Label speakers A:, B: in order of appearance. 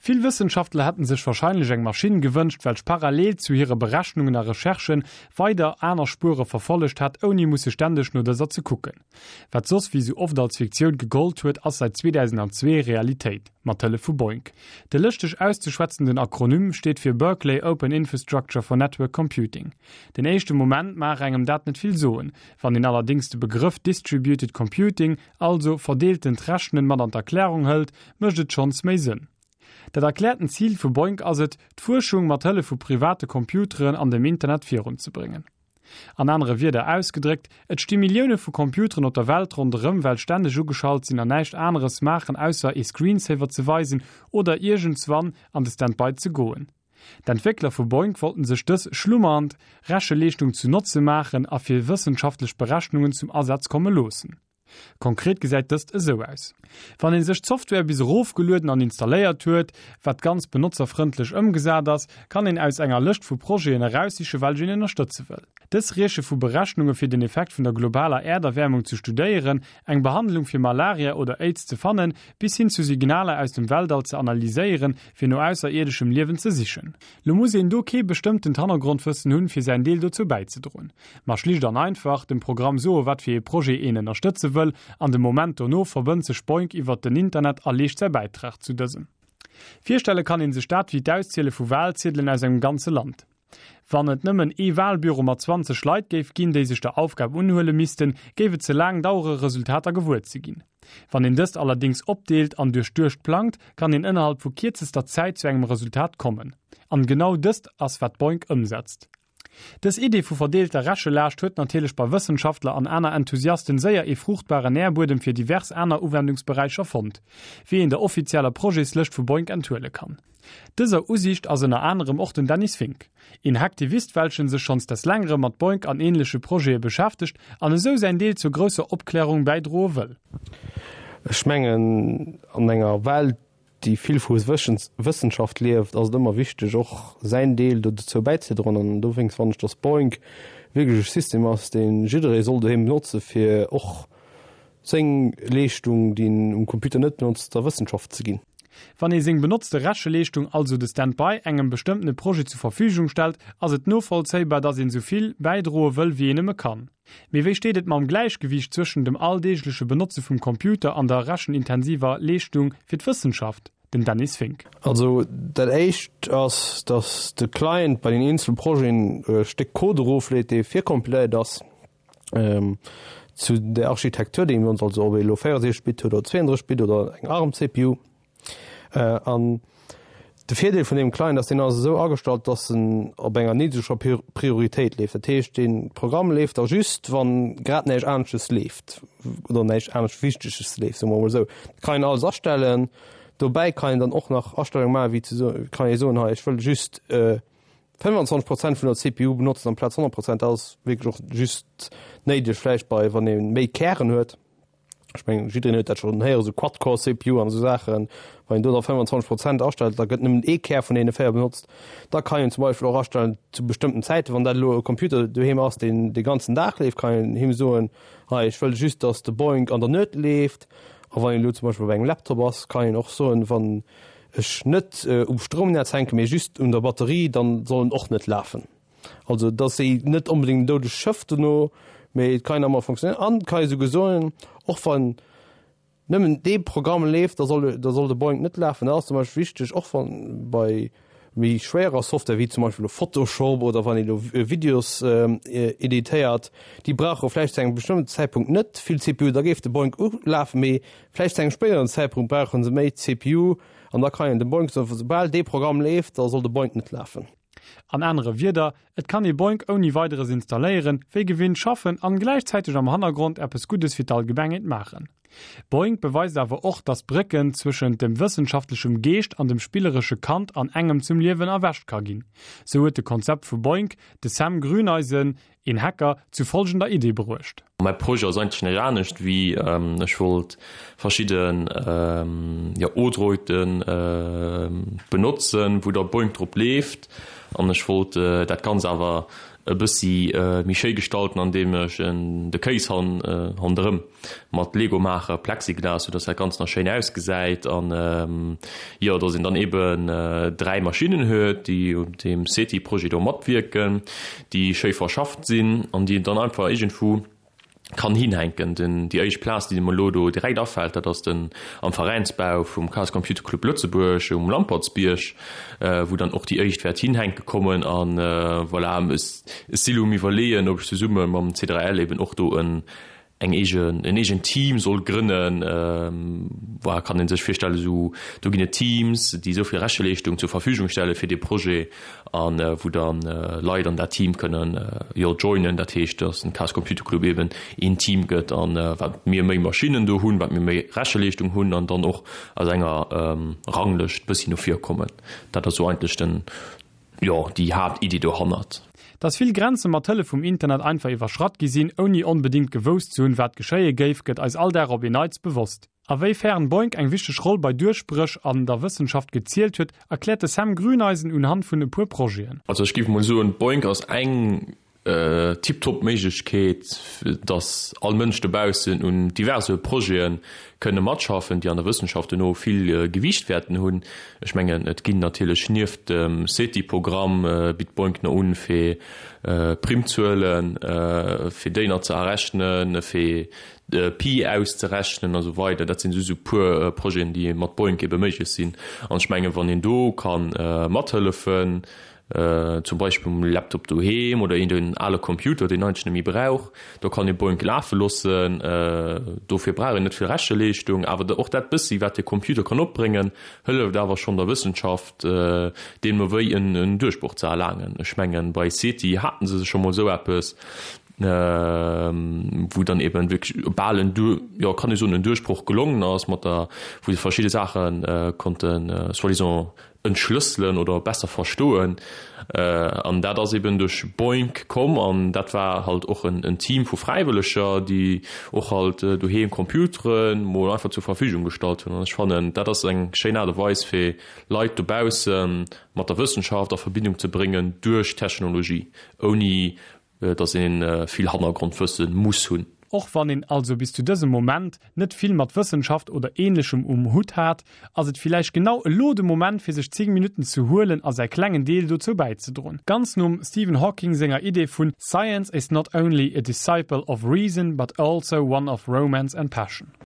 A: Vill Wëssenschaftler hätten sech warscheinlech eng Maschinn gewënscht, welch parallel zu hire Berechnungen a Recherchen weider aner Spuere verfollegt hätt, ouni musse ständeg no dëser ze kucken. Wat soss wéi sou oft als Fiktioun gegollt huet, ass säit 2002 Realitéit, mat Hëllef vu BOINC. De lëschteg auszeschwätzenden Akronym steet fir Berkeley Open Infrastructure for Network Computing. Den éischte Moment maach engem dat net vill soen, wann een allerdéngs de Begrëff Distributed Computing, also verdeeltent Rechnen, mat an d'Erklärung hëlt, mécht et schonns méi Sënn. Dat erkläerten Zil vu BOINC ass et, d'Fuerschung mat Hëllef vu private Computeren an dem Internet virunzebréngen. An anere Wierder ausgedréckt, Et sti Millioune vu Computeren op der Welt ronderëm, well stänneg ugeschalt sinn an näischt aneres maachen ausser ee Screensaver ze weisen oder iergendswann an de Standby ze goen. D'Entwéckler vu BOINC wollten sech dës schlummernd Recheleeschtung zu Notze maachen a fir wëssenschaftlech Berechnungen zum Asaz komme loossen. Konkret gesäit dëst esou aus. Wann een sech d'Software bis erofgelueden an installéiert huet, wat ganz benotzerfrëndlech ëmgesat ass, kann een aus enger Lëscht vu Projeten eraussiche welch een ënnerstëtze wëll. Dës rieche vu Berechnunge fir den Effekt vun der globaler Äerderwäermung ze studéieren, eng Behandlung fir Malaria oder Aids ze fannen, bis hin zu Signaler aus dem Weltall ze analyséieren, fir no ausserierdeschem Liewen ze sichen. Lo muss een do kee bestëmmtent Hannergrondwëssen hunn, fir säin Deel dozou bäizedroen. Ma schlicht an einfach, dem Programm soe wat fir ee Projet een ënnerstëtze wëll, an de Moment dono verbënnt sech BOINC iwwert den Internet a leescht säi Bäitrag zu dësem. Virstelle kann een sech dat wéi d'Ausziele vu Walziedelen aus engem ganze Land. Wann et nëmmen ee Walbüro mat 20 Leit géif ginn, déi sech der Aufgab unhuele missten, géif et ze laang dauere Resultater gewuer ze ginn. Wann een dëst allerdéngs opdeelt an duerchduecht plangt, kann een ënnerhalb vu kierzester Zäit zu engem Resultat kommen. An genau dëst ass wat BOINC ëmsetzt. Dës Idee vu verdeelter Rechelaascht huet natierlech bei Wëssenschaftler an aner Enthusiasten séier ee fruuchtbaren Nährbuedem fir divers aner Uwendungsberäicher fonnt, wéi een der offizieller Projetslëscht vu BOINC enthuele kann. Dëser Usiicht ass ënner anerem och den Dennis Fink, een Hacktivist welchen sech schonns des längerem mat BOINC an ähnleche Projete beschäftegt an esou säin Deel zur grousser Opklärung bäidroe wëll.
B: Ech mengen, an enger Welt, déi vill vu Wëssenschaft lieft, ass et ëmmer wichteg, och säin Deel dozou bäizedroen. An dowéinst fannen ech, dass BOINC wierklech e System ass, dee jidderee soll doheem benotze fir och seng Leeschtung, déi en um Computer net benotzt, der Wëssenschaft ze ginn.
A: Wann ee seng benotzte Recheleeschtung, also de Standby, engem bestëmmtene Projet zu Verfügung stellt, ass et novollzéibar, dass een esou vill bäidroe wëll, wéi een nëmme kann. Mee wéi steet et mam Gläichgewiicht zwëschen dem alldeegleche Benotze vum Computer an der rechenintensiver Leeschtung fir d'Wëssenschaft? Den Dennis Fink.
B: Also dat éischt ass, dass de Client bei den eenzele Projeten e Stéck Code erofleet, dee virkompiléiert ass. Zu der Architektur, déi mir ons, also ob ee elo 64 Bit huet oder 32 Bit oder eng ARM-CPU. An de Virdeel vun deem Client ass, deen ass esou agestallt, datt en op enger niddreger Prioritéit leeft. Dat heescht, dee Programm leeft da just, wann grad näischt aneschtes leeft oder näischt anescht Wichteges leeft, soe mer emol esou. Dat kann een alles astellen. Dobäi kann een dann och nach Astellunge maachen, wéi ze soen, kann ee soen, hei ech wëll just 25 Prozent vun der CPU benotzen amplaz 100 Prozent, dat ass wierklech och just néideg vläicht bei wann ee méi Kären huet. Ech mengen jiddereen huet dat schonn héieren, esou Quad-Core CPU an esou Saachen. Wann een do da 25 Prozent astellt, da gëtt nëmmen ee Kär vun deene 4 benotzt. Da kann een zum Beispill och astellen zu bestëmmten Zäiten, wann dat elo e Computer doheem ass, deen de ganzen Dag leeft, kann een him soen, hei ech wëll just, datt de Boink an der Nuet leeft. A wann een elo zum Beispill op engem Laptop ass, kann een och soen, wann ech net um Stroumnetz hänken, mee just un der Batterie, dann soll en och net lafen. Also et ass net onbedéngt en doudegt Schëff dono, mee et kann ëmmer funktionéieren an et kann ee souguer soen, och wann nëmmen dee Programm leeft, da soll da soll de Boink net lafen. Dat ass zum Beispill wichteg, och wann bei méi schwéierer Software wéi zum Beispill elo Photoshop oder wann ee elo Videos editéiert, déi brauche vläicht zu engem bestëmmten Zäitpunkt net vill CPU, da géif de Boink ulafen, mee Vläicht zu engem spéideren Zäitpunkt brauchen se méi CPU an da kann een dem Boink soen, soubal dee Programm leeft, da soll de Boink net lafen.
A: An anere Wierder, et kann ee Boink ouni Weideres installéieren, wéi gewinnt schaffen an gläichzäiteg am Hannergrond eppes Guddes fir d'Allgemengheet maachen. Boink beweist awer och, dass d'Brécken zwëschent dem wëssenschaftlechem Geescht an dem spilleresche Kand an engem zum Liewen erwächt ka ginn. Sou huet de Konzept vu Boink de Sam Grüneisen, een Hacker, zu folgender Idee bruecht.
C: Mäi Projet ass eigentlech näischt anescht wéi ech wollt verschidden jo Odroiden benotzen wou da Boink drop leeft an ech wollt dat ganz awer. E bëssi méi schéi gestalten andeem ech en de Kéis handerëm mat Lego maache, Plexiglas, sou dass dat Ganzt nach schéin ausgesäit an jo dass een dann eben 3 Maschinnen huet déi un deem SETI Projet do matwierken, déi schéi verschafft sinn an déi een dann einfach iergendwou kann hinhänken. Den, déi éischt Plaz, déi mer elo do direkt afält, dat ass den am Veräinsbau vum Chaos Computer Club Lëtzebuerg um Lampertsbierg, wou dann och déi éischt wäert hinhänke kommen. A voilà, ech si elo um Iwwerleeën, ob ech zesumme mam C3L eben och do en eng eegen, en eegent Team soll grënnen. Voilà, kann ee sech virstellen, esou do ginn et Teams, déi esou vill Recheleeschtung zur Verfügung stelle fir dee Projet. an wou dann Leit an dat Team kënnen jo joinen, dat heescht dass den Chaos Computer Club eben een Team gëtt an wat mir méi Maschinnen do hunn, wat mir méi Recheleeschtung hunn an dann och aus enger Ranglëscht bëssi no vir kommen. Dat ass sou eigentlech den jo déi Haaptiddi dohannert.
A: Dass vill Grenze mat Hëllef vum Internet einfach iwwerschratt gi sinn, ouni onbedéngt gewousst ze hunn, wat geschéie géif, gëtt eis all Dag op een Neits bewosst. A wéi fern Boink eng wichteg Roll bei Duerchbréch an der Wëssenschaft gezielt huet, erkläert de Sam Grüneisen unhand vun e puer Projeten.
C: Also ech géif mol soen, Boink ass eng tiptop Méiglechkeet, dass all Mënsch dobaussen un diverse Projete kënne matschaffen, déi an der Wëssenschaft duerno vill Gewiicht wäerten hunn. Ech mengen, et ginn natierlech nieft dem SETI-Programm, bitt Boink no un, fir Primzuelen, fir déi nach ze errechnen, fir de Pi auszerechnen a sou weider. Dat sinn just esou puer Projeten, déi mat Boink ebe méiglech sinn. An ech mengen, wann een do ka mathëllefen, zum Beispill um Laptop doheem oder een ale Computer, deen eigentlech net méi brauch, do kann ee Boink lafe loossen. Dofir brauch een net vill Recheleeschtung, awer och dat bëssi, wat de Computer kann opbréngen, hëlleft awer schonn der Wëssenschaft, deemno wéi en Duerchbroch ze erlaangen. Ech mengen, bei SETI hate se scho mol esou eppes. wou dann eben wierklech bal en, jo kann ee soen, en Duerchbroch gelongen ass mat der, wou se verschidde Saache konnten soi-disant entschlësselen oder besser verstoen. An dat ass eben duerch Boink komm an dat war halt och en Team vu Fräiwëlleger, déi och halt doheem Computeren mol einfach zur Verfügung gestallt hunn. An ech fannen, dat ass eng schéin Aart a Weis fir Leit dobausse mat der Wëssenschaft a Verbindung ze bréngen duerch Technologie, ouni dass een vill Hannergrondwëssen muss hunn.
A: Och wann een also bis zu dësem Moment net vill mat Wëssenschaft oder ähnlechem um Hutt hat, ass et villäicht genau elo de Moment fir sech 10 Minutten ze huelen a säi klengen Deel dozou bäizedroen. Ganz nom Stephen Hawking senger Idee vun Science is not only a disciple of reason but also one of romance and passion.